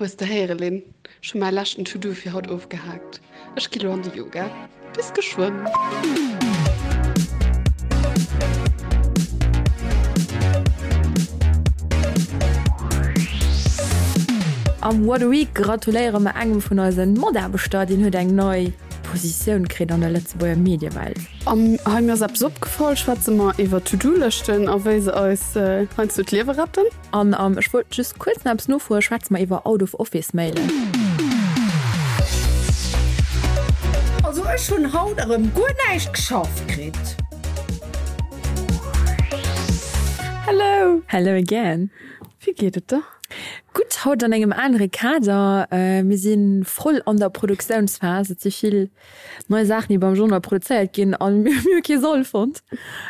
Hues de héiere Lynn? Ech hu mäi leschten To-Do fir haut ofgehaakt. Ech gi lo an de Yoga. Bis geschwënn! Am What a Week gratuléiere mer engem vun eisen Mataarbechter, deen huet eng nei Positioun kritt an der Lëtzebuerger Mediewelt. Am Hei mir ass eppes opgefall schwätze mer iwwer To-Do-Lëschten a wéi se eis heiansdo d'Liewe retten. An am Ech wollt just kuerz nach eppes nofroen schwätze mer iwwer Out-of-Office-Mailen. Also ech hunn haut erëm guer näischt geschafft kritt. Hello! Hello again! Wéi geet et der? Gutt, haut an engem anere Kader. Mir si voll an der Produktiounsphas. Et si vill nei Saachen, déi beim Journal produzéiert ginn a mir hu kee Sall fonnt,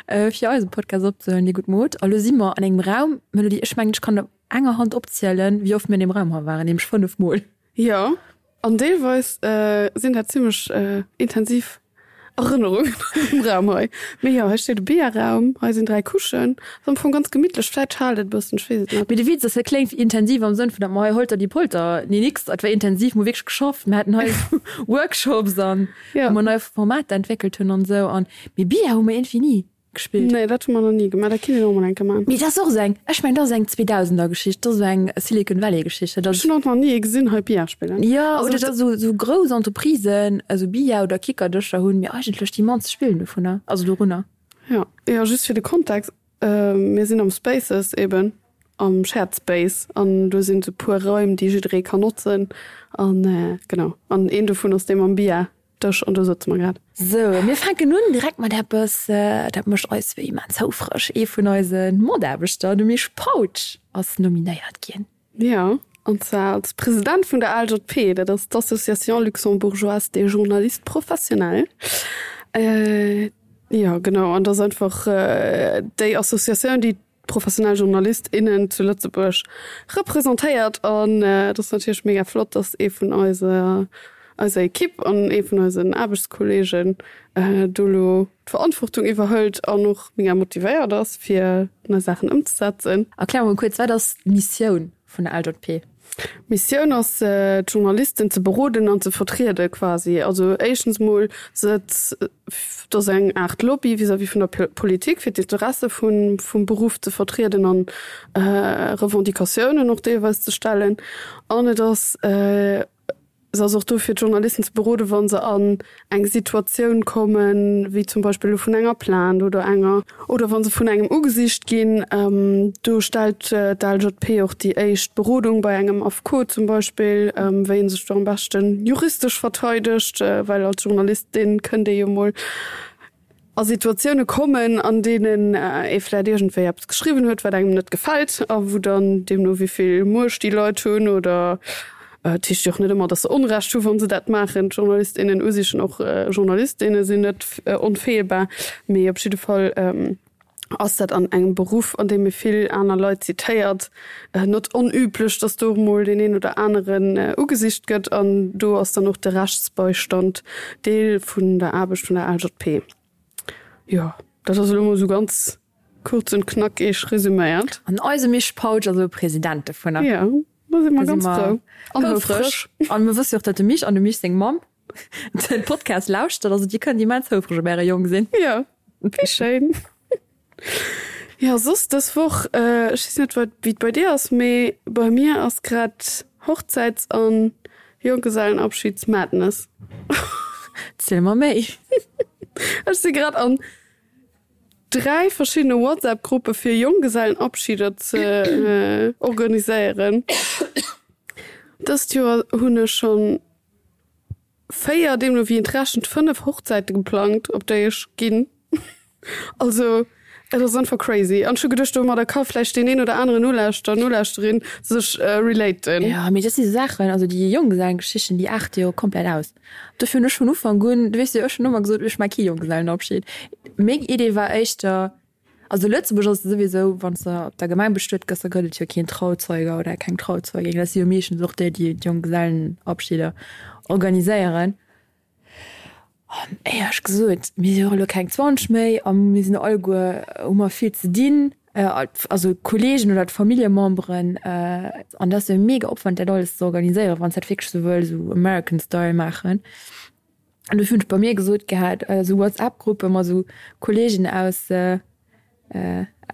fir eise Podcast opzehuelen, déi gutt Mod. A lo si mer an engem Raum, Melody, ech mengen, ech kann op enger Hand opzielen, wéi oft mir an deem Raum hei waren, nämlech 5 Mol. Jo, an deelweis sinn dat zimmlech intensiv Erënnerungen an deem Raum hei. Mee jo, hei steet e Bierraum, hei sinn 3 Couchen. Ass am Fong ganz gemittlech, vläit schaalt et e bëssen, ech weess et net. Mee de Witz ass, dat kléngt intensiv am Sënn vun, datt mer hei Holter die Polter, nee nix, et war intensiv, mer hu wierklech geschafft, mer haten hei Workshops an wou mer nei Formater entwéckelt hunn an esou an, mee Billard hu mer iergendwéi ni gespillt. Nee, dat hu mer nach ni gemaach, dat kinnt een och mol eng Kéier maachen. Mee dat ass och esou eng, ech mengen dat ass eng Zweedausender-Geschicht, dat ass esou eng Silicon Valley-Geschicht, dat ass. Ech hunn och nach ni ee gesinn hei Billard spillen. Jo, oder datt esou esou grouss Entreprisen esou Billard oder Kickerdëscher hunn, mee eigentlech déi mannst spillen dovunner, also dorunner. Jo, jo, just fir de Kontext, Mir sinn am Spaces eben, am Shared Space an do sinn esou puer Raim, déi jidderee kann notzen an genau an een dovun ass dee mam Billard-Dësch an do sëtze mer grad. Sou, mir fänken un direkt mat eppes, dat mécht eis wéi immens houfreg, Ee vun eise Mataarbechter, de Misch Pautsch, ass nominéiert ginn. Jo, an zwar als President vun der ALJP, dat ass d'Association luxembourgeoise des journalistes professionnels. Jo, genau, an dat ass einfach déi Associatioun, déi d'professionell Journalist, innen zu Lëtzebuerg representéiert. An et ass natierlech mega flott, datt ee vun eiser eiser Ekipp an ee vun eisen Aarbechtskolleegen do elo d'Verantwortung iwwerhëlt an och mega motivéiert ass, fir nei Saachen ëmzesetzen. Erklär mol kuerz, wat ass d'Missioun vun der LJP? D'Missioun ass, d'Journalisten ze beroden an ze vertriede quasi. Also éischtens mol se, et ass eng Aart Lobby vis-à-vis vun der Politik, fir d'Interesse vum Beruff ze vertrieden an Revendicatiounen och deelweis ze stellen. An et ass Se ass och do fir d'Journalisten ze beroden, wa se an eng Situatioun kommen, wéi zum Beispill elo vun enger Plainte oder enger, oder wa se vun engem ugesicht ginn. Do stellt d'ALJP och déi éischt Berodung bei engem Affekot zum Beispill, wéi ee sech do am beschten juristesch verteidegt, well als Journalist, dee kënnt ee jo mol a Situatioune kommen, an deenen ee vläit iergendwéi eppes geschriwwen huet, wat engem net gefält a wou dann, deemno wéi vill Muecht déi Leit hunn oder et heescht jo och net ëmmer, datt se Onrecht hu wa se dat maachen, d'Journalist, innen u sich och Journalist, inne sinn net onfeelbar, mee op jidde Fall ass dat an engem Beruff, an deem ee vill aner Leit zitéiert, net onüblech, datt do och mol deen een oder aneren ugesicht gëtt. An do ass dann och de Rechtsbeistand Deel vun der Aarbecht vun der ALJP. Jo, dat ass elo mol esou ganz kuerz und knackig resüméiert. An eise Misch Pautsch ass elo President dovunner. Jo, do si mer ganz frou an houfreg. An mir wësse jo och, datt de Misch an dem Misch seng Mamm den Podcast lauschtert, also dir kënnt immens houfreg op äre Jong sinn. Jo, wéi schéin. Jo, soss dës Woch, ech weess net wat wéi et bei dir ass, mee bei mir ass grad Hochzäits an Jonggesellenabschieds-Madness. Ziel mer méi. Ech si grad an 3 verschiddene WhatsApp-Gruppe fir Jonggesellenabschieder ze organiséieren. Dëst Joer hunn ech schonn 4, deemno wéi een et rechent, 5 Hochzäite geplangt, op déi ech ginn. Also et ass einfach crazy. An ech hu geduecht, domadder ka vläicht deen een oder aneren Nolauschterer, Nolauschterin sech relaten. Jo, mee dat si Saachen, also déi Jonggesellengeschichten, déi aarte jo komplett aus. Dofir hunn ech vun Ufank un, du weess jo, ech hunn ëmmer gesot, ech maache kee Jonggesellenabschied. Meng Idee war éischter, Also Lëtzebuerg ass et souwisou, wann s de op der Gemeng bestuet gëss, da gëtt et jo keen Trauzeuger oder keng Trauzeugin. Dat si jo meeschtens och déi, déi d'Jonggesellenabschieder organiséieren. An éierlech gesot, mir si jo och elo keng 20 méi a mir sinn alleguer, hu mer vill ze dinn. Also d'Kollegen oder d'Familljememberen. An dat ass jo e mega Opwand, dat alles ze organiséieren, wann s dat wierklech esou wëlls, esou American Style maachen. An dofir hunn ech bei mir gesot gehat, esou WhatsApp-Gruppe mat esou Kollegen aus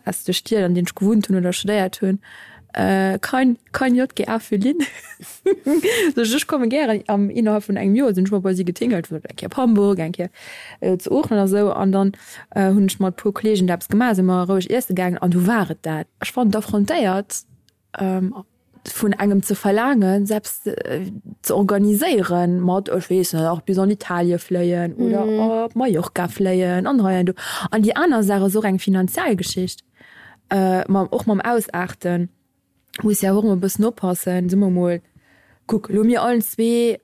aus de Stied, an deenen ech gewunnt hunn oder studéiert hunn, Kein, kein JGA für Lynn. Sot ech, ech komme gären. Am innerhalb vun engem Joer sinn ech mol bei si getingelt, eng Kéier op Hamburg, eng Kéier zu Oochen a sou. An dann hunn ech mat e puer Kollegen da eppes gemaach, si mer roueg iesse gaangen an du war et dat. Ech fannen et affrontéiert, vun engem ze verlaangen, selbst ze organiséieren mat, ech weess net, och bis an Italie fléien oder op Mallorca fléien an hei an do. An déi aner Saach ass och eng finanziell Geschicht, mam, och mam Ausaarten muss jo och ëmmer e bëssen oppassen, soe mer mol, kuck elo mir allen zwee,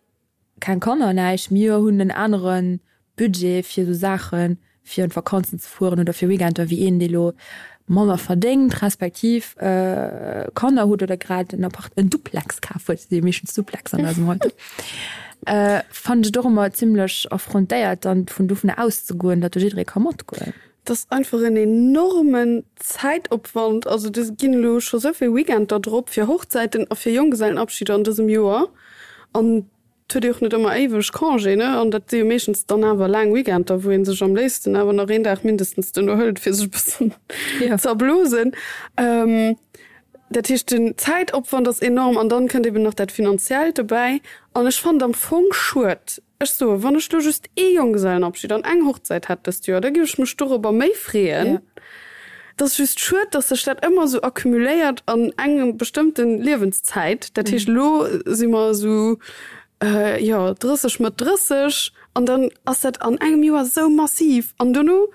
Keng Kanner, näischt. Mir hunn en anere Budget fir esou Saachen, fir an d'Vakanzen ze fueren oder fir Weekender, wéi een, dee lo manner verdéngt, respektiv Kanner huet oder grad en Appart, en Duplex kaf huet, si meeschtens Duplex an eisem Alter, fannen ech et och ëmmer zimlech affrontéiert, dann vun dovunner auszegoen, datt do jidderee ka matgoen. Et ass einfach en enormen Zäitopwand. Also do ginn elo scho sou vill Weekender drop fir Hochzäiten a fir Jonggesellenabschieder an dësem Joer. An et huet ee och net ëmmer éiweg Congé, ne? An dat si jo meeschtens dann awer laang Weekender, wou ee sech am léifsten awer nach een Dag mindestens duerno hëlt, fir sech e bëssen ze erblosen. Dat heescht, den Zäitopwand ass enorm an dann kënnt eben nach dat Finanziellt dobäi. An ech fannen et am Fong schued, Ech soen, wann ech lo just ee Jonggesellenabschied an eng Hochzäit hätt dëst Joer, da géif ech mech dorobber méi freeën. Et ass just schued, dass sech dat ëmmer esou accumuléiert an engem bestëmmten Liewenszäit. Dat heescht, elo si mer esou, jo, 30, Mëtt 30, an dann ass dat an engem Joer esou massiv. An dono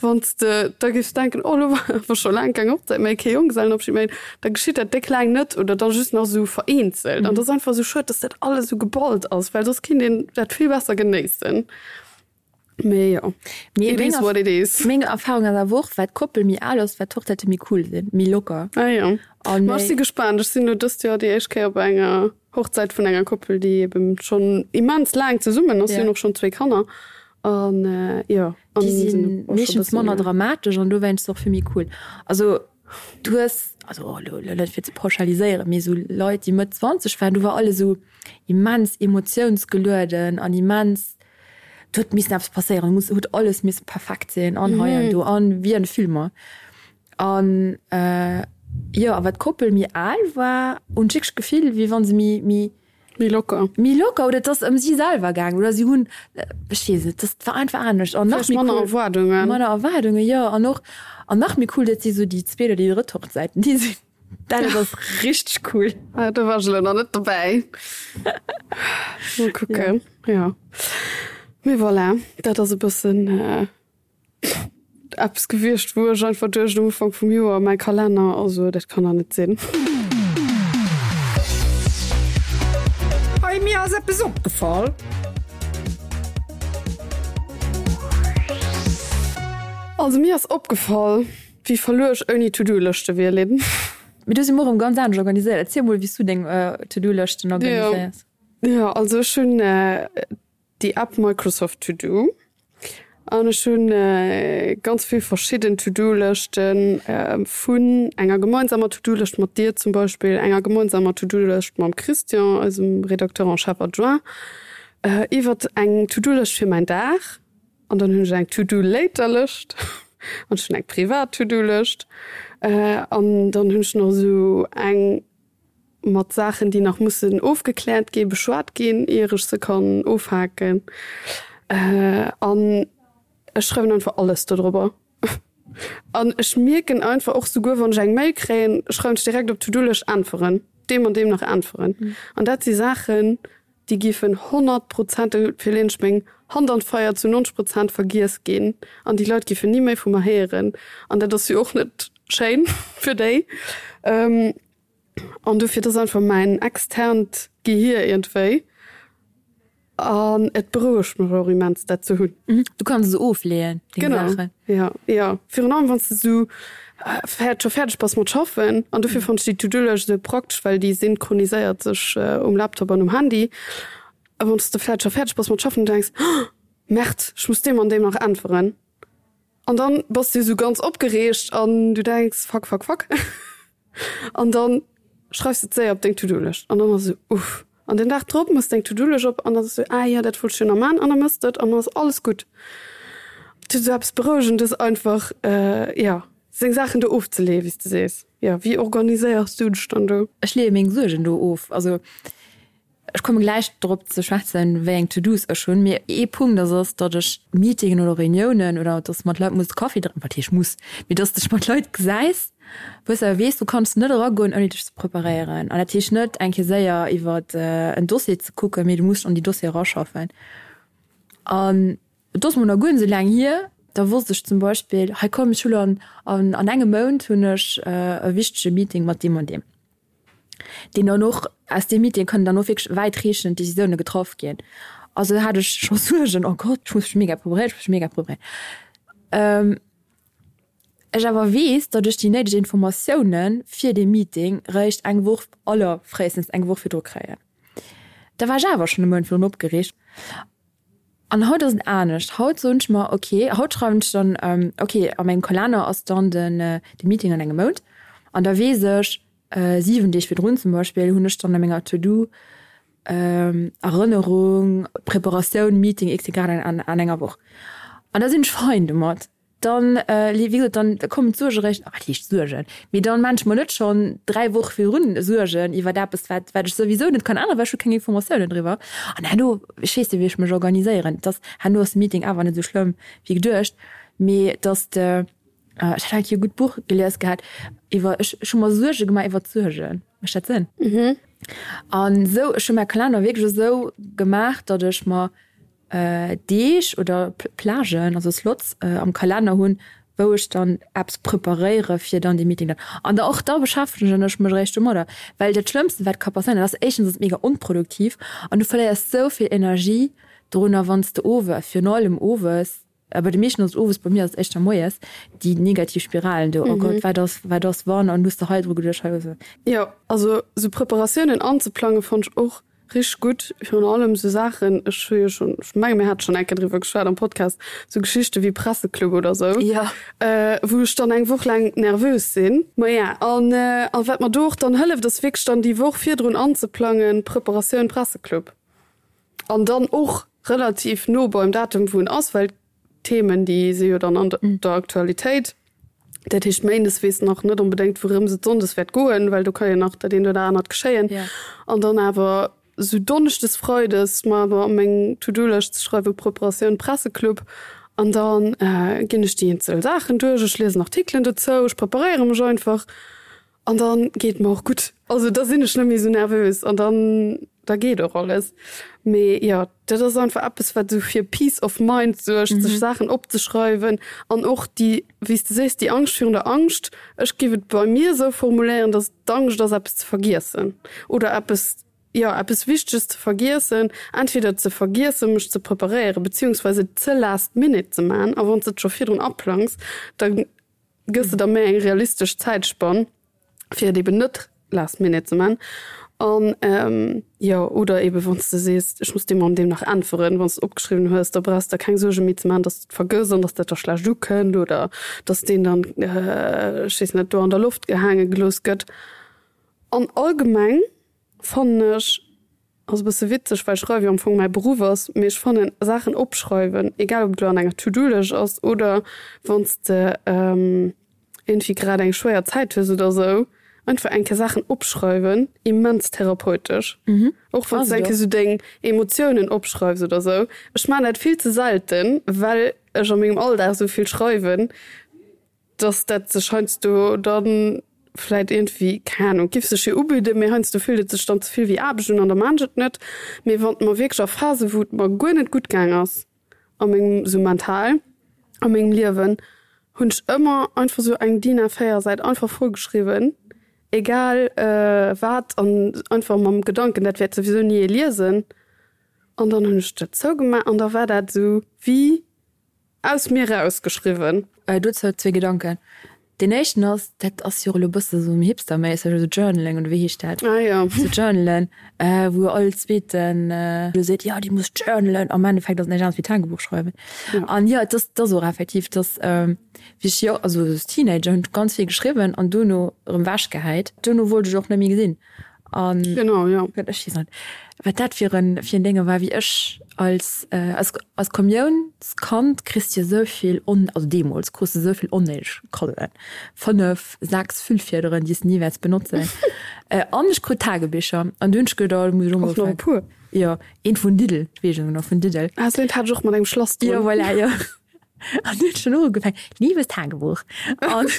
Wann s de da géifs denken, oh elo war awer scho laang keng Hochzäit méi, kee Jonggesellenabschied méi, da geschitt dat déck laang net oder da just nach esou vereenzelt. An dat ass einfach esou schued, dass dat alles esou geballt ass, well soss kinnt een dat vill besser genéissen. Mee jo, it is what it is. Meng Erfahrung ass awer och, wat d'Koppel méi al ass, wat d'Hochzäite méi cool sinn, méi locker. Ah jo, ma ech si gespaant. Ech sinn elo dëst Joer déi éischt Kéier op enger Hochzäit vun enger Koppel, déi eben schonn immens laang zesummen ass. Si hunn och schonn zwéi Kanner an jo. Déi si meeschtens manner dramatesch an dowéinst och vill méi cool. Also du hues, also elo net fir ze pauschaliséieren, mee esou Leit, déi Mëtt 20 waren, do war alles esou immens emotiounsgelueden an immens, do huet missen eppes passéieren, muss huet alles misse perfekt sinn an hei an do an wéi an de Filmer. An jo, a wat d'Koppel méi al war, hunn ech wierklech d'Gefill, wéi wa se méi, méi. Méi locker. Méi locker oder et ass ëm si selwer gaangen oder si hunn, ech weess net, dat war einfach anescht. An nach méi cool. Manner Erwaardungen. Manner Erwaardungen, jo. An och, an nach méi cool, dat si sou déi zweet oder déi drëtt Hochzäiten, déi sinn, dat ass richteg cool. Ah, do war ech elo nach net dobäi. Mol kucken, jo. Mee voilà, dat ass e bëssen. Eppes gewiescht, wou ech einfach duecht um Ufank vum Joer, mäi Kalenner, also dat kann der net sinn. Hey, mir ass eppes opgefall. Also mir ass opgefall, wéi verluer ech ouni To-Do-Lëschte wier, Lynn. Mee du si mer erëm ganz anescht organiséiert. Erziel mol, wéi s du deng To-Do-Lëschten organiséiers. Jo, also ech hunn déi App Microsoft To Do an ech hunn ganz vill verschidden To Do Lëschten vun enger gemeinsamer To Do Lëscht mat dir zum Beispill, enger gemeinsamer To Do Lëscht mam Christian, eisem Rédacteur en chef adjoint, iwwert eng To Do Lëscht fir mäin Dag an dann hunn ech eng To Do Later Lëscht an ech hunn eng privat To Do Lëscht an dann hunn ech nach esou eng mat Saachen, déi nach mussen ofgekläert ginn, beschwat ginn, ier ech se kann ofhaken. An ech schreiwen einfach alles dodrobber. An ech mierken einfach och souguer, wann ech eng Mail kréien, schreiwen ech direkt op d'To-do-Lëscht äntweren, deem an deem nach äntweren. An dat si Saachen, déi géifen 100 Prozent, dofir leeën ech meng Hand an d'Feier, zu 90 Prozent vergiess ginn an déi Leit géifen ni méi vu mer héieren. An dat ass jo och net schéin fir déi. An dofir, dat ass einfach mäin externt Gehier iergendwéi. An et berouegt mech och immens, dat ze hunn. Du kanns se ofleeën, deng Saachen. Genau, jo, jo. Virun allem, wann s de esou scho fäerdeg bass mat schaffen. An dofir fannen ech déi To-Do-Lëscht esou praktesch, well déi synchroniséiert sech um Laptop an um Handy. A wann s de vläicht scho fäerdeg bass mat schaffen an du denks, Oh, Merde, ech muss deem an deem nach äntweren. An dann bass du esou ganz opgereegt an du denks, Fuck, fuck, fuck. An dann schreifs de et séier op deng To-Do-Lëscht an dann ass esou, Uff. An den Dag drop mëss deng To-Do-Lëscht op an dann ass esou, Ah jo, dat wollt ech jo nach man. An da mëss de et an dann ass alles gutt. Et huet esou eppes Berouegendes einfach, jo, seng Saachen do ofzeleeën, wéi s de sees. Jo, wéi organiséiers du dech dann do? Ech leeë meng Suergen do of. Also Ech komme gläich drop ze schwätzen, wéi eng To-Dos ech hunn. Mee ee Punkt ass, ass, datt ech Meetingen oder Reuniounen oder datt mat Leit muss Kaffi drénken, wat heescht muss, mee datt s dech mat Leit gesäis, wou s awer weess, du kanns net eragoen, ouni dech ze preparéieren. An dat heescht net, eng Kéier séier iwwer en Dossier ze kucken, mee du muss dech an déi Dossiere eraschaffen. An et ass mol nach guer net esou laang hier, da wosst ech zum Beispill, hei komm, ech hu lo an an engem Mount hunn ech e wichtege Meeting mat deem an deem. deen dann och, aus deem Meeting kënnen dann och wierklech wäitreechend Décisioune getraff ginn. Also hat ech scho Suergen, oh Gott, ech muss mech mega preparéieren, ech muss mech mega preparéieren. Ech awer weess, datt ech déi néideg Informatioune fir dee Meeting réischt eng Woch, allerfréistens eng Woch virdru kréien. Da war ech awer schonn e Mount virdrun opgereegt. An haut ass et anescht. Haut soen ech mer, ok, haut schreiwen ech dann, ok, a mengem Kalenner ass dann den de Meeting an engem Mount. An da weess ech, 7 Deeg virdrun zum Beispill hunn ech dann a menger To-Do Erënnerung, Preparatioun, Meeting XY an an enger Woch. An da sinn ech fein domat. Dann, wéi gesot, dann kommen d'Suerge réischt, wat heescht Suergen, mee dann maan ech mer net schonn 3 Woche virdrun Suergen iwwert eppes, wat wat ech souwisou net kann änneren, well ech hu keng Informatiounen driwwer. An herno, ech weess jo wéi ech mech organiséieren, dass herno ass de Meeting awer net esou schlëmm wéi geduecht, mee dass de, ech hat eng Kéier e gutt Buch gelies gehat iwwer, ech ech hu mer Suerge gemaach iwwer d'Suergen, mécht dat Sënn? An esou, ech hu mäi Kalenner wierklech esou gemaach, datt ech mer Deeg oder Plagen, also Slots am Kalenner hunn, wou ech dann eppes preparéiere fir dann dee Meeting dann. An da och da beschäftegen ech mech eréischt domadder, well dat Schlëmmste wat ka passéieren, dat ass éischtens ass et mega onproduktiv an du verléiers sou vill Energie dorunner, wann s de owes, virun allem owes, bei de meeschten ass et owes, bei mir ass et éischter moies, déi negativ Spiralen do, oh Gott, wat ass, wat ass wann an hues de hei dru geduecht, hei hues de. Jo, also sou Preparatiounen anzeplange fannt ech och Richteg gutt, virun allem sou Saachen, ech hu jo schonn, ech menge mir hate schonn eng Kéier driwwer geschwat am Podcast, sou Geschichte wéi Presseclub oder sou, wou ech dann eng Woch laang nervös sinn. Maja, an a wat mer do och dann hëlleft, ass wierklech dann déi Woch virdrun anzeplangen, Preparatioun Presseclub, an dann och relativ no beim Datum wou en ass, well Themen, déi si jo dann an der Aktualitéit. Dat heescht, méindes weess nach net onbedéngt, wourëms et sonndes wäert goen, well do ka jo nach dat eent oder anert geschéien. An dann awer esou donneschdes, freides mer awer a meng To-do-Lëscht ze schreiwen, Preparatioun Presseclub. An da ginn ech déi eenzel Saachen duerch, ech liesen Artikelen dozou, ech preparéiere mech einfach. An dann geet mer och gutt. Also da sinn ech net méi esou nervös an dann da geet och alles. Mee jo, dat ass einfach eppes, wat esou fir Peace of mind suergt, sech Saachen opzeschreiwen an och déi, wéi s de sees, déi Angscht virun der Angscht. Ech géif et bei mir esou formuléieren, dass et d'Angscht ass, eppes ze vergiessen oder eppes, jo, eppes Wichteges ze vergiessen, entweder ze vergiessen, mech ze preparéieren, beziehungsweise et ze last minute ze man. A wann s de et scho virdrun aplangs, da gëss de der méi eng realistesch Zäitspann, fir et eben net last minute ze man. An jo, oder eben wann s de sees, ech muss deem an deem nach äntweren, wann s de opgeschriwwen hues, da brauchs de der keng Suerge méi ze man, dass de et vergëss an dass dat da schlecht ukënnt oder dass deen dann, ech weess net, do an der Loft gehaange gelooss gëtt. An allgemeng fannen ech, Ass e bësse witzeg, well Schreiwe jo am Fong mäi Beruff ass, mee ech fannen Saachen opschreiwen, egal ob et elo an enger To-Do-Lëscht ass oder wann s de iergendwéi grad eng schwéier Zäit hues oder esou, einfach eng Kéier Saachen opschreiwen, immens therapeutesch. Och wann s de eng Kéier esou deng Emotiounen opschreifs oder esou. Ech maachen dat vill ze selten, well ech a mengem Alldag esou vill schreiwen. dass dat sech heiansdo dann vläit iergendwéi, keng Ahnung, giff sech jo ubidden, mee heiansdo fillt et sech dann ze vill wéi Aarbecht un an da maan ech et net. Mee wann mer wierklech a Phasen, wou et mer guer net gutt gaang ass a mengem, sou mental a mengem Liewen, hunn ech ëmmer einfach sou eng DIN A4 Säit einfach voll geschriwwen, egal wat an einfach mam Gedanken, dat wäert souwisou ni ee liesen. An dann hunn ech dat zougemaach an da war dat sou wéi Aus mir raus geschriwwen. Dozou zwee Gedanken. Deen éischten ass, dat ass jo och elo e bësse sou hipsterméisseg, esou Journaling oder wéi heescht dat? Ah jo. Sou Journalen, wou all zweeten elo seet, jo dir musst journalen. Am Endeffekt ass et näischt anescht wéi Tagebuch schreiwen. An jo, et ass, et ass och effektiv, dass wéi ech jo, also als Teenager hunn ech ganz vill geschriwwen an duerno erëm wechgehäit. Duerno wollt ech och net méi gesinn. An genau, ja. Ech weess net, wat dat fir en, fir en Dénge war, wéi ech als, als, als Kommiounskand kriss de jo esou vill on, also deemools krus de esou vill onnéideg Kaddoen, 5, 6 Füllfiederen, déi s de ni wäerts benotzen. An ech krut Tagebicher an du hunn ech geduecht, oh, do muss ech och mol Och nach e puer? Jo, eent vun Lidl, weess ech nach, vun Lidl. Ah, esou eent hat ech och mat engem Schlass drun. Jo, voilà, jo. An du hunn ech dann och ugefaangen, Liebes Tagebuch. An.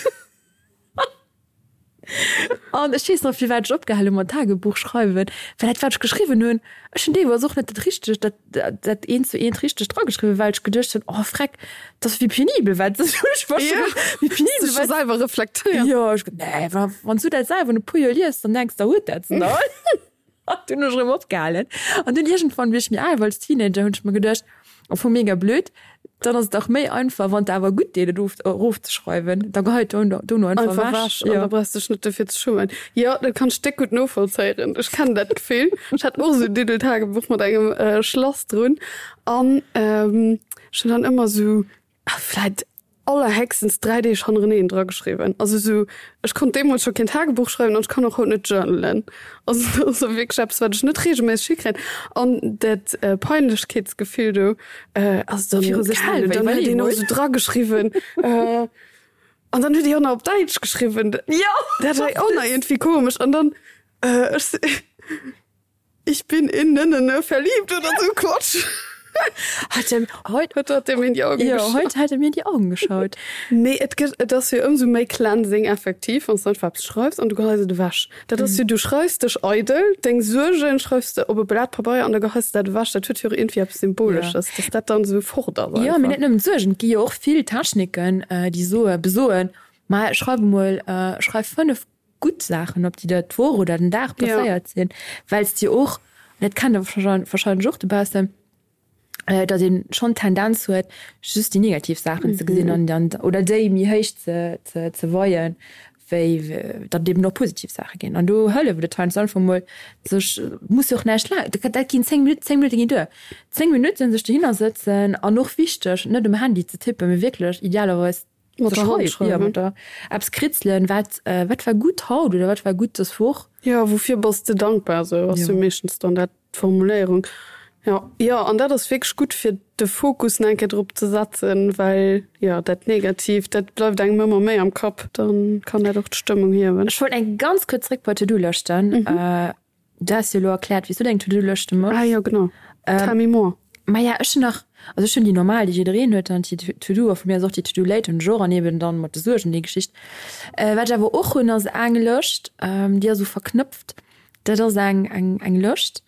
An ech weess nach firwat ech opgehal hu mat Tagebuch schreiwen, well dat wat ech geschriwwen hunn, ech hunn deelweis och net dat richtegt, dat dat eent zu eent richteg drageschriwwen, well ech geduecht hunn, oh freck, dat ass wéi penibel wat ech war Ja, wéi penibel sech scho wat selwer reflektéiert. Jo, ech ge nee, wa wann s du dat selwer no e puer Joer liest, dann denks de, huet dat se nach all? An dunn hunn ech erëm opgehalen. An dunn iergendwann, wéi ech méi al war als Teenager, hunn ech mer geduecht, Am Fong mega blöd, dann ass et dach méi einfach, wann et awer gutt deet, et of erofzeschreiwen, da geheit dono dono einfach Einfach ewech. ewech an Jo. da brauchs dech net dofir ze schummen. Jo, dat kann ech déck gutt novollzéieren. Ech kennen dat Gefill. Ech hat och esou en Diddeltagebuch mat engem Schlass drun an ech hunn dann ëmmer esou vläit allerhéchstens 3 Deeg hannereneen drageschriwwen. Also esou, ech konnt deemools scho keen Tagebuch schreiwen an ech kann och haut net journalen. Also dat ass och wierklech eppes, wat ech net reegelméisseg hikréien. An dat Peinlechkeetsgefill do ass dann, Viru sech keine Ahnung, selwer, dann huet iwwerlee een och mol. esou drageschriwwen an dann huet déi och nach op Däitsch geschriwwen. Jo! Dat war och nach iergendwéi komesch. An dann, ech si. Ich bin in ne verliebt oder so Quatsch. Hat er heut, heut hat er mir in die Augen ja, geschaut. Heut hat er mir in die Augen geschaut. Nee, et gëtt, et ass jo ëmsou méi cleansing effektiv, wann s du einfach eppes schreifs an du geheis et ewech. Dat ass jo, du schreifs dech eidel, deng Suergen schreifs de op e Blat Pabeier an da geheis de dat ewech. Dat huet jo och iergendwéi eppes Symbolesches, dass dat dann esou fort ass Jo, mee einfach. net nëmmen d'Suergen, et gi jo och vill Techniken, déi soe, besoen, ma schreif emol, schreif 5 gutt Saachen op, déi der d'Woch oder den Dag passéiert sinn, well s de och, dat kennt der warscheinlech och dobaussen, datt ee schonn d'Tendenz huet, just déi negativ Saachen ze gesinn an dann oder déi méi héich ze ze weien, wéi datt et eben och positiv Saache ginn. An do hëlleft et heiansdo einfach emol, sech, muss jo och näischt laang, dat ginn 10 Minutten, 10 Minutte ginn duer, 10 Minutten sech dohinner sëtzen an och wichteg, net um Handy ze tippen, mee wierklech idealerweis Mat der Hand schreiwen. Ja, mat der eppes kritzelen, wat, wat war gutt haut oder wat war gutt dës Woch. Jo, woufir bass de dankbar, esou ass jo meeschtens dann dat d'Formuléierung. Jo, jo, an dat ass wierklech gutt fir de Fokus nach eng Kéier drop ze setzen, well jo dat Negatiivt, dat bleift engem ëmmer méi am Kapp, dann kann dat och d'Stëmmung hiewen. Ech wollt eng ganz kuerz zréck bei d'To-Do-Lëschten. Du has jo elo erkläert, wéi s du deng To-Do-Lëschte méchs. Ah jo, genau. Tell me more. Maja, ech hunn nach, also ech hunn déi normal, déi jiddereen huet, dann déi To-Do, a vu mir aus och déi To-Do late hunn ech och, an eben dann mat de Suergen, déi Geschicht. Wat ech awer och hunn, ass eng Lëscht, déi ass esou verknëpft, dat ass eng, eng, eng Lëscht,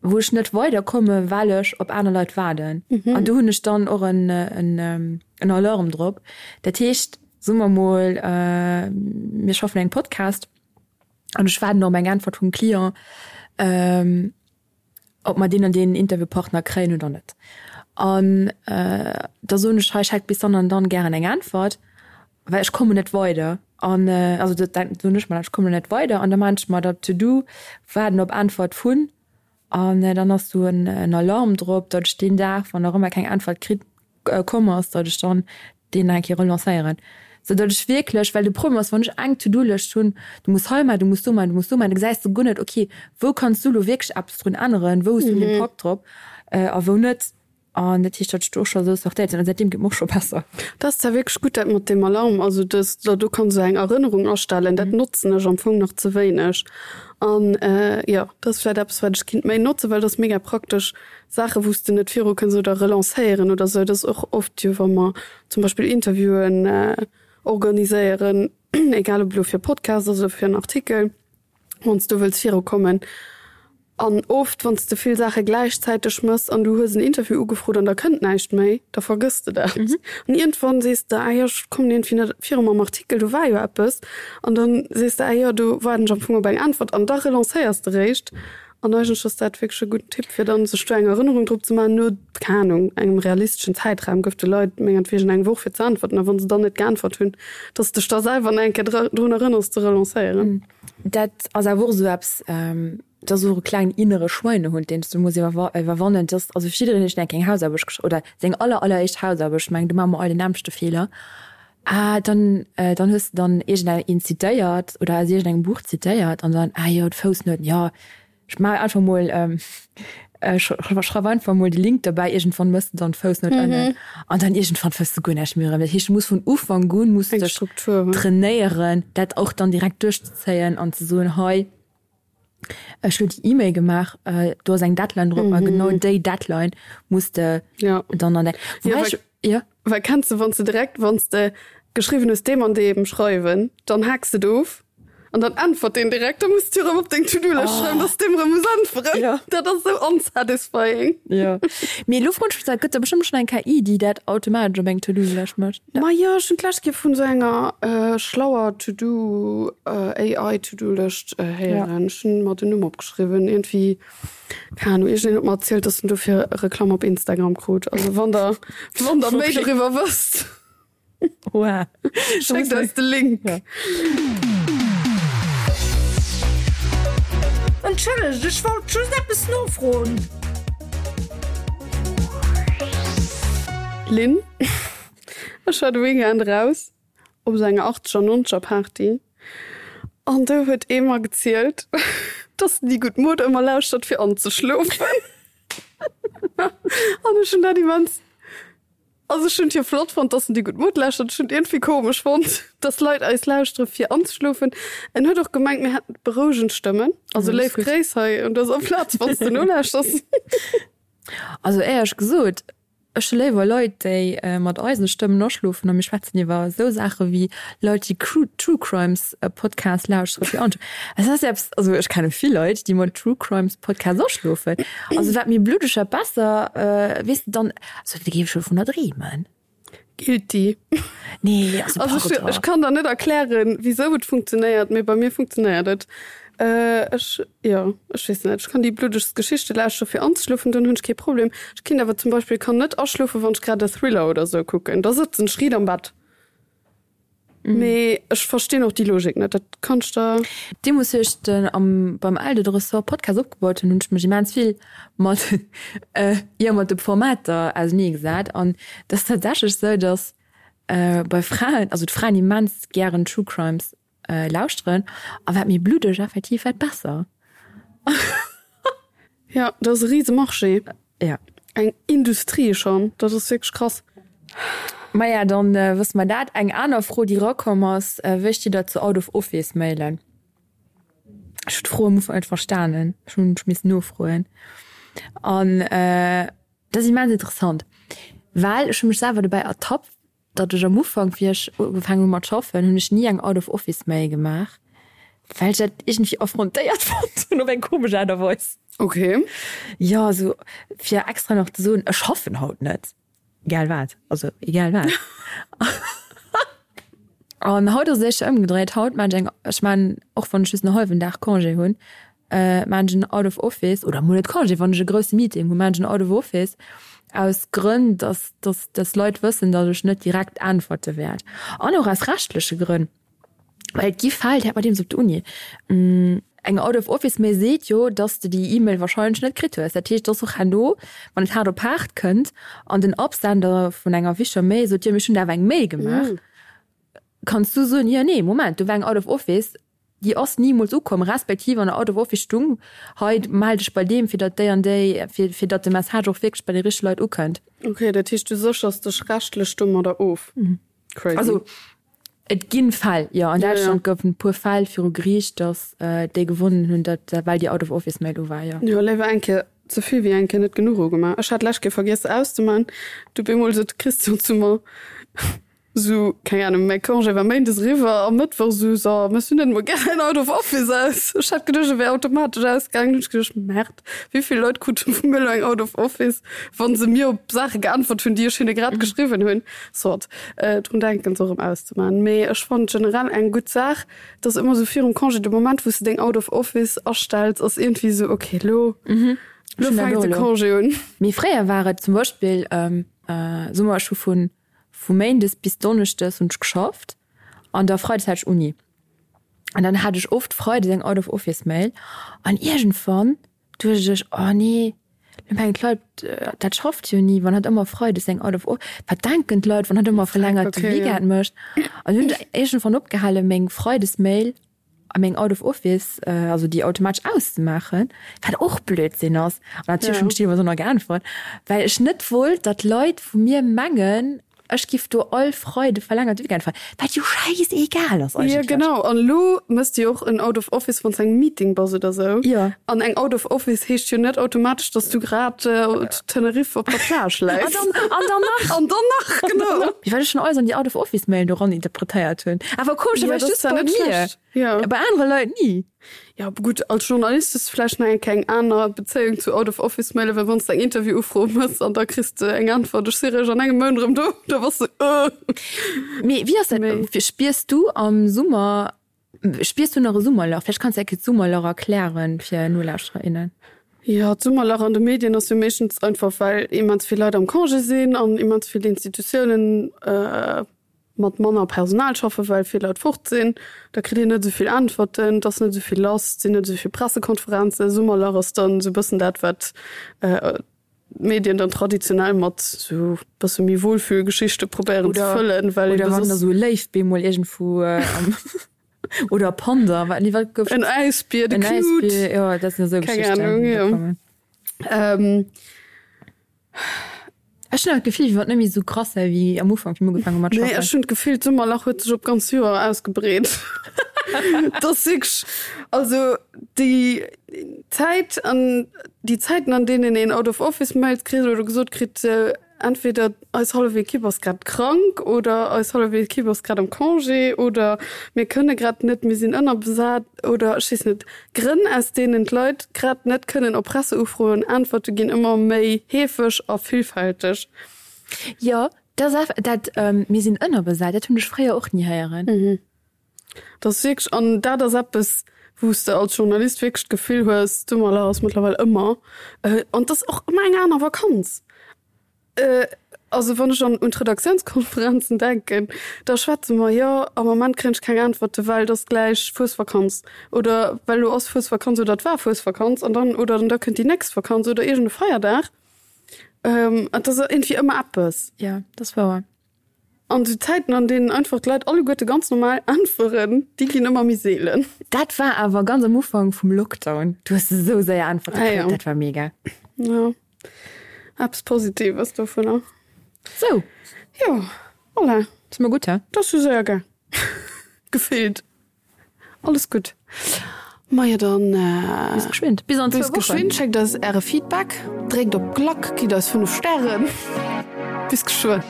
wou ech net weiderkomme well ech op aner Leit waarden. An do hunn ech dann och en, en, en Alarm drop. Dat heescht, soe mer mol, mir schaffen un engem Podcast, An ech waarden op eng Äntwert vum Client, ob mer deen an deen Interviewpartner kréien oder net. An da soen ech, hei, ech hätt bis dann an dann gären eng Äntwert, well ech kommen net weider. An also dat soen ech mer dann, ech kommen net weider. An da maachen ech mer dat To-do, waarden op Äntwert vun. An dann ass do en Alarm drop, datt ech deen Dag, wann nach ëmmer keng Äntwert kritt, komm ass, datt ech dann deen nach eng Kéier relancéieren. Sou datt ech wierklech, well de Problem ass, wann ech eng To-do-Lëscht hunn, du muss hei maachen, du muss do maachen, du muss do maachen, da gesäis de guer net, okay, wou kanns du elo wierklech eppes drun änneren, wou hues du en Impakt drop a wou net. An dat heescht, datt ech do och scho esou sortéiert sinn. An säitdeem geet mer och scho besser. Dat ass zwar wierklech gutt, dat mat deem Alarm, also dass der do kanns esou eng Erënnerung astellen, dat notzen ech am Fong nach ze wéineg. An jo, dat ass vläicht eppes, wat ech kinnt méi notzen, well dat ass mega praktesch, Saache wou s de net viru kënns oder relancéieren oder esou. Dat ass och oft jo, wa mer zum Beispill Interviewen organiséieren, egal ob elo fir e Podcast ass oder fir en Artikel, wann s du wëlls virukommen. An oft, wann s de vill Saache gläichzäiteg mëss an du hues en Interview ugefrot an da kënnt näischt méi, da vergëss de dat. An iergendwann sees de, ah jo, ech kommen iergendwéi net viru mam Artikel, do war jo eppes. An dann sees de, ah jo, do waarden ech am Fong op eng Äntwert. An da relancéiers de réischt. An eigentlech ass dat wierklech e gudden Tipp, fir dann sech do eng Erënnerung drop ze maachen, no, keng Anung, engem realisteschen Zäitraum. Gëff de Leit mengertwegen eng Woch fir ze äntwerten a wa se dann net geäntwert hunn, dass de dech da selwer nach eng Kéier drun erënners ze relancéieren. Dat ass awer och esou eppes, dat ass och e klengen innere Schweinehund, deen s du muss iwwerwannen. Dat ass also fir jiddereen, deen eng keng Hausaarbecht geschriwwen oder seng aller alleréischt Hausaarbecht, ech mengen do maache mer all den nämmlechte Feeler, ah dann dann hues de dann iergendeng een zitéiert oder aus iergendengem Buch zitéiert an dann, ah jo d'Foussnouten, jo ech maache einfach mol, ech schreiw einfach mol de Link derbäi, iergendwann mëss de dann d'Foussnout ënnen an dann iergendwann fënns de guer näischt méi erëm. Dat heescht du muss vun Ufank un muss de dech trainéieren dat och dann direkt duerchzezéien an ze soen, hei Ech hu déi E-Mail gemaach, do ass eng Deadline drop a genau déi Deadline muss de dann an däi. Wobäi ech, jo. Well kenns de, wann s de direkt, wann s de geschriwwen hues deem an deem schreiwen, dann haaks de et of an dann äntwert deen direkt, da muss de erëm op deng To-Do-Lëscht schreiwen, dass de deem erëm muss äntweren. Dat ass esou unsatisfying. Jo. Mee elo froen ech mech, dat gëtt der bestëmmt schonn eng KI, déi dat automatesch op eng To-Do-Lëscht mécht. Majo, ech hunn d'lescht Kéier vun esou enger schlauer To-Do, AI To-Do-Lëscht héieren. Ech hunn mer den Numm opgeschriwwen. Iergendwéi, keng Ahnung, iergendeen huet mer erzielt, dass en dofir Reklamm op Instagram krut. Also wann der, wann der méi doriwwer wësst, schéckt eis de Link. Entschëllegt, ech wollt just eppes nofroen. Lynn, Ech war de Weekend eraus op esou enger achtzeger, nonzeger Party an do huet ee mer gezielt, dass en déi gutt Mod ëmmer lauschtert fir anzeschlofen. An ech hunn dat immens, also ech hunn et jo flott fonnt, dass en déi gutt Mod lauschtert, ech hunn et iergendwéi komesch fonnt, dass Leit eis lauschtere fir anzeschlofen. En huet och gemengt, mir hätten berouegend Stëmmen. Also léif Gréiss hei un dëser Plaz, wann s de nolauschters. Also éierlech gesot, Ech hu léiwer Leit, déi mat eisen Stëmmen aschlofen a mir schwätzen iwwer esou Saache wéi Leit, déi True Crimes Podcasts lauschtere fir ansch. Et ass eppes, also ech kenne vill Leit, déi mat True Crimes Podcasts aschlofen. Also wat méi bluddeg, wat besser, weess de dann, also da géif ech jo dovunner dreemen. Guilty. Nee, also Also ech, ech kann der net erklären, wisou et funktionéiert, mee bei mir funktionéiert et. Ech, jo, ech weess net, ech kann déi bluddegst Geschichte lauschteren, fir anzeschlofen, dann hunn ech kee Problem. Ech kinnt awer zum Beispill kann net aschlofen, wann ech grad e Thriller oder sou kucken, da sëtzen ech riit am Bett. Mee ech verstinn och déi Logik net, dat kann ech der. Deemools wéi ech den am beim Eldo de Ressort Podcast opgebaut hunn, hunn ech mech immens vill mat jo mat de Formater ausenee gesat an et ass tatsächlech sou, datt bei Fraen, also d'Fraen immens gären True Crimes lauschteren a wat méi bluddeg effektiv wat besser. Jo, dat ass e rise Marché. Ja. Eng Industrie schonn, dat ass wierklech krass. Maja, dann wësse mer dat. Eng aner Fro, déi erakomm ass, Wéi steet Der zu Out-of-Office-Mailen? Ech hunn d'Fro am Ufank net verstanen, ech hunn missen nofroen. An dat ass immens interessant, well ech hu mech selwer dobäi ertappt, Datt ech am Ufank, wéi ech ugefaangen hu mat schaffen, hunn ech ni eng Out of Office Mail gemaach, well ech dat iergendwéi affrontéiert fonnt hunn op eng komesch Aart a Weis. Ok. Jo, esou fir extra nach ze soen, ech schaffen haut net, egal wat, also egal wat. An haut ass et éischter ëmgedréit, haut maan ech eng, ech maan, och wann ech just en hallwen Dag Congé hunn, maan ech en Out of Office, oder mol net Congé, wann ech e grousse Meeting hunn, maan ech en Out of Office, aus Grënn, dass, dass, dass Leit wëssen, dass ech net direkt äntwerte wäert. An och aus rechtleche Grënn, well et gi Fäll, déi hat mer deemools op der Uni, eng Out of Office Mail seet jo, dass de déi E-Mail wahrscheinlech net kritt hues. Dat heescht, dass och herno, wann et haart op haart kënnt an den Absender vun enger wichtiger Mail sot, jo, mee ech hunn der awer eng Mail gemaach, kanns du soen, jo, nee, Moment, do war eng Out of Office, Déi ass nimools ukomm, respektiv an der Out of Office stung, hei mell dech bei deem, fir datt déi an déi, fir fir datt de Message och wierklech bei déi richteg Leit ukënnt. Ok, dat heescht du séchers dech rechtlech domadder of? Crazy. Also et ginn Fäll, jo. An Däitschland goufen e puer Fäll viru Geriicht, datt déi gewonnen hunn, datt well déi Out of Office Mail u war, jo. Jo, léiwer eng Kéier ze vill wéi eng Kéier net genuch ugemaach. Ech hat d'lescht Kéier vergiess se auszemaachen, du bemol sot de Christian zu mer. Sou, keng Ahnung, mäi Congé war méindes eriwwer a mëttwoch sou, so, mëss du net emol gär en Out of Office aus? Ech hat geduecht, e wär automatesch ausgaangen. Hunn ech geduecht, Merde, wéi vill Leit krute vu mir elo eng Out of Office, wa se mir op Saache geäntwert hunn, déi ech hinne grad geschriwwen hunn. Soit, drun denken, se och erëm auszemaachen. Mee ech fannen et generell eng gutt Saach, dass ëmmer sou virum Congé, de Moment, wou s de deng Out of Office astells, ass iergendwéi sou, okay, elo, elo fänkt de Congé un. Mee fréier war et zum Beispill, soe mer, ech hu vun Vu Méindes bis Donneschdes hunn ech geschafft an da Freides hat ech Uni. An dann hat ech oft Freides eng Out of Office Mail an iergendwann duecht ech, oh nee, lo mengen d'Leit, dat schafft jo ni, wann hatt ëmmer Freides eng Out of Of, wat denken d'Leit, wann hatt ëmmer verlängerte Weekend mécht? An hunn ech iergendwann opgehale meng Freides Mail a meng Out of Office, also déi automatesch auszemaachen, wat och Blödsinn ass. An natierlech hunn ech deelweis och nach geäntwert, well ech net wollt, datt Leit vu mir mengen, ech giff do all Freide verlängerte Weekend feieren, wat jo schäisegal ass eigentlech. Jo genau, an elo mëss de jo och en Out of Office, wann s engem Meeting bass oder sou. Jo. An eng Out of Office heescht jo net automatesch, datt s du grad zu Tenerife op der Plage läis. An dann, an dann nach. An dann nach, genau. Wéi wat ech schon alles an déi Out of Office Mail do ran interpretéiert hunn. Awer komescherweis Ja, das just war bei net mir. schlecht. Ja. Bei anere Leit ni. Ja, gutt, als Journalist hues du vläicht nach eng keng aner Bezéiung zu Out of Office Mailen, well wann s de eng Interview-Ufro mëss an da kriss de eng Äntwert, ech si réischt an engem Mount erëm do, da bass de äh. Mee wéi ass dat, Mee. spiers du am Summer Spiers du nach e Summerlach? Vläicht kanns de eng Kéier d'Summerlach erklären fir Nolauschterer, innen. Jo, d'Summerlach an de Medien ass jo meeschtens einfach, well immens vill Leit am Congé sinn an immens vill Institutiounen mat manner Personal schaffen, well vill Leit fort sinn. Da kritt een net esou vill Äntwerten, et ass net esou vill lass, et sinn net esou vill Pressekonferenzen. Summerlach ass dann esou e bëssen dat, wat d'Medien dann traditionell mat sou bësse méi Wohlfühlgeschichte probéieren ze fëllen, well oder wann da sou e Léif bemol iergendwou am oder e Panda, wat nee wat gouf en Äisbier, de en Knut, Äisbier, jo dat sinn esou keng Geschichten Ahnung, déi da jo. kommen. Ähm. Ech hunn awer d'Gefill, wéi wann et net méi esou krass wär wéi am Ufank, wéi mir ugefaangen hu mat Nee, schaffen. ech hunn d'Gefill, d'Summerlach huet sech op d'ganz Joer ausgebreet. Dat ass wierklech, also déi Zäit an déi Zäiten, an deenen een Out of Office Mails kritt oder gesot kritt, entweder eis hallef Ekipp ass grad krank oder eis hallef Ekipp ass grad am Congé oder mir kënne grad net, mir sinn ënnerbesat oder ech weess net, Grënn, aus deenen d'Leit grad net kënnen op Presseufroen äntwerte ginn ëmmer méi heefeg a villfälteg. Jo, dat ass eff, dat mir sinn ënnerbesat, dat hunn ech fréier och ni héieren. Dat ass wierklech, an dat ass eppes, wou s de als Journalist wierklech d'Gefill hues, d'Summerlach ass mëttlerweil ëmmer, an et ass och ëmmer eng aner Vakanz. Also wann ech an un d'Redaktiounskonferenzen denken, da schwätze mer, jo am Moment kréien ech keng Äntwerte well et ass gläich Fuesvakanz oder well elo ass Fuesvakanz oder et war Fuesvakanz an dann oder da kënnt déi nächst Vakanz oder iergend e Feierdag. Et ass iergendwéi ëmmer eppes. Jo, dat ass wouer. An esou Zäiten, an deenen einfach d'Leit alleguerte ganz normal äntweren, déi ginn ëmmer méi seelen. Dat war awer ganz am Ufank vum Lockdown. Du hues esou séier Äntwerte Ah, kritt, ja. dat war mega. Ja, eppes Positives dovunner. Sou. Jo, voilà. Si mer gutt, he? Dat ass jo séier gaang. Gefillt. Alles gutt. Majo dann Bis geschwind. Bis an bis zwou Wochen. geschwind. Schéckt eis äre Feedback, dréckt op d'Klack, gitt eis 5 Stären. Bis geschwënn.